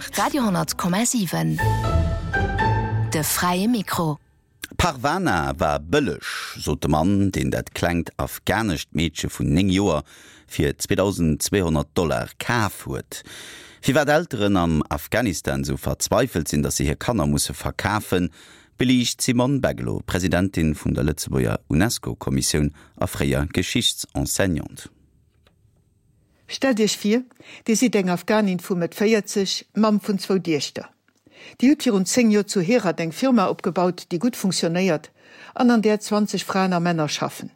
8. Radio 10,7 De fräie Mikro. Parvana war bëlleg, sot de Mann, deen dat klengt afghanescht Meedche vun 9 Joer fir 2.200 Dollar kaf huet. Firwat Elteren am Afghanistan sou verzweifelt sinn, datt se hir Kanner musse verkafen, beliicht d'Simone Beglo, Presidentin vun der Lëtzebuerger UNESCO-Kommissioun a fréier Geschichtsenseignante. Stellt Iech vir, Dir sidd eng Afghanin vu Mëtt 40, Mamm vun zwou Diechter. Dir hutt virun 10 Joer zu Herat eng Firma opgebaut, déi gutt funktionéiert an an där 20 Fraen a Männer schaffen.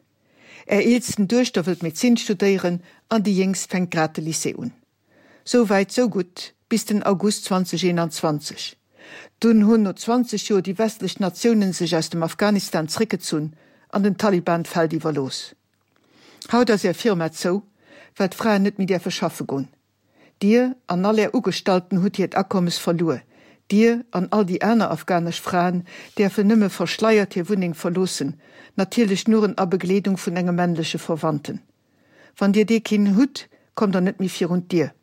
Är eelsten Duechter wëllt Medezin studéieren an déi jéngst fänkt grad de Lycée un. Sou wäit, sou gutt, bis den August 2021. Dunn hunn no 20 Joer déi westlech Natiounen sech aus dem Afghanistan zréckgezunn an den Taliban d'Feld iwwerlooss. Haut ass är Firma zou, well d'Fraen net méi däerfe schaffe goen. Dir an all är Ugestallten hutt hiert Akommes verluer. Dir an all déi aner afghanesch Fraen däerfen nëmme verschleiert hir Wunneng verloossen, natierlech nuren a Begleedung vun engem männleche Verwandten. Wann dir dee keen hutt, kommt der net méi virun d'Dier.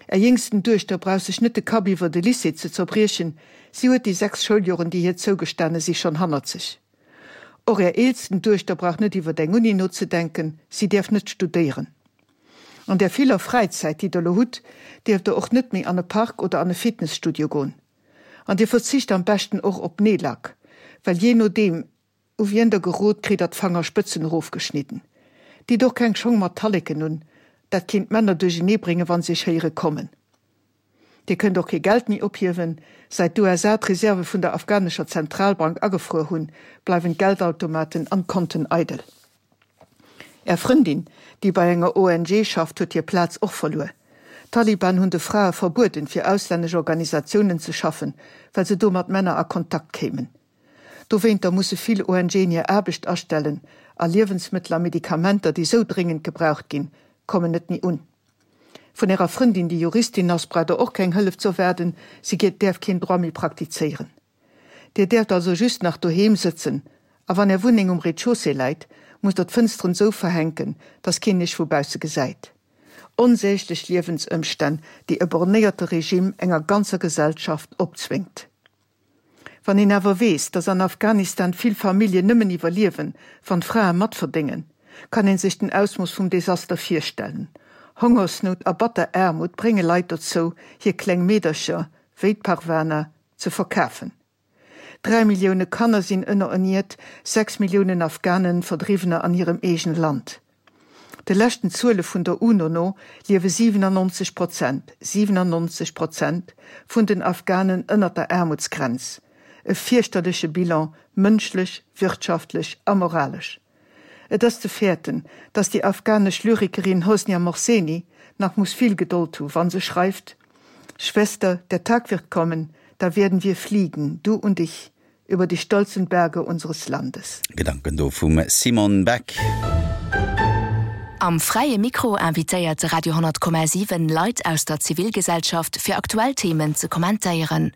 Är jéngsten Duechter brauch sech net de Kapp iwwer de Lycée ze zerbriechen, si huet déi 6 Schouljoren, déi hir zougestane si, schonn hannert sech. Och är eelsten Duechter brauch net iwwer eng Uni nozedenken, si däerf net studéieren. An där viller Fräizäit, déi der lo hutt, dierft der och net méi an e Park oder an e Fitnesstudio goen. An dir verzicht am beschten och op Neellack, well jee nodeem, U wien der gerot, kritt der d'Fangerspëtzen erofgeschnidden. Ditt och keng Schong mat Talleken un, dat kéint d'Männer duerchenee bréngen, wann se iech héiere kommen. Dir kënnt och kee Geld méi ophiewen. Säit d'USA d'Reserve vun der afghanescher Zentralbank agefruer hunn, bleiwen d'Geldautomaten an d'Konten eidel. Är Frëndin, déi bei enger ONG schafft, huet hir Plaz och verluer. D'Taliban hunn de Frae verbueden, fir auslännesch Organisatiounen ze schaffen, well se do mat Männer a Kontakt kéimen. Dowéinter musse vill ONGen hir Aarbecht astellen a Liewensmëttel a Medikamenter, déi sou dréngend gebraucht ginn, kommen net méi un. Vun ärer Frëndin, déi Juristin ass, braucht der och keng Hëllef z'erwaarden, si däerf keen Droit méi praktizéieren. Dir däerft also just nach doheem sëtzen a wann är Wunneng um Rez-de-chaussée läit, musst der d'Fënsteren sou verhänken, dass keen iech vu bausse gesäit. Onsäglech Liewensëmstänn, déi e bornéierte Regime enger ganzer Gesellschaft opzwéngt. Wann een awer weess, datt an Afghanistan vill Familljen nëmmen iwwerliewen, wann d'Frae matverdéngen, kann een sech den Ausmooss vum Desaster virstellen. Hongersnout a batter Aarmut brénge Leit dozou, hir kleng Meedercher, wéi d'Parwana, ze verkafen. 3 Millioune Kanner sinn ënnererniert, 6 Milliounen Afghanen Verdriwwener an hirem eegene Land. De leschten Zuele vun der UNO no liewe 97 Prozent, 97 Prozent, vun den Afghanen ënnert der Aarmutsgrenz. E fierchterleche Bilan, mënschlech, wirtschaftlech a moralesch. Et ass ze fäerten, datt déi afghanesch Lyrikerin Hosnia Mohseni nach muss vill Gedold hu wa se schreift, Schwester, der Tag wird kommen, da werden wir fliegen, du und ich, über die stolzen Berge unseres Landes. Gedanken do vum Simone Beck. Am Fräie Mikro invitéiert de Radio 10,7 Leit aus der Zivilgesellschaft fir aktuell Themen ze kommentéieren.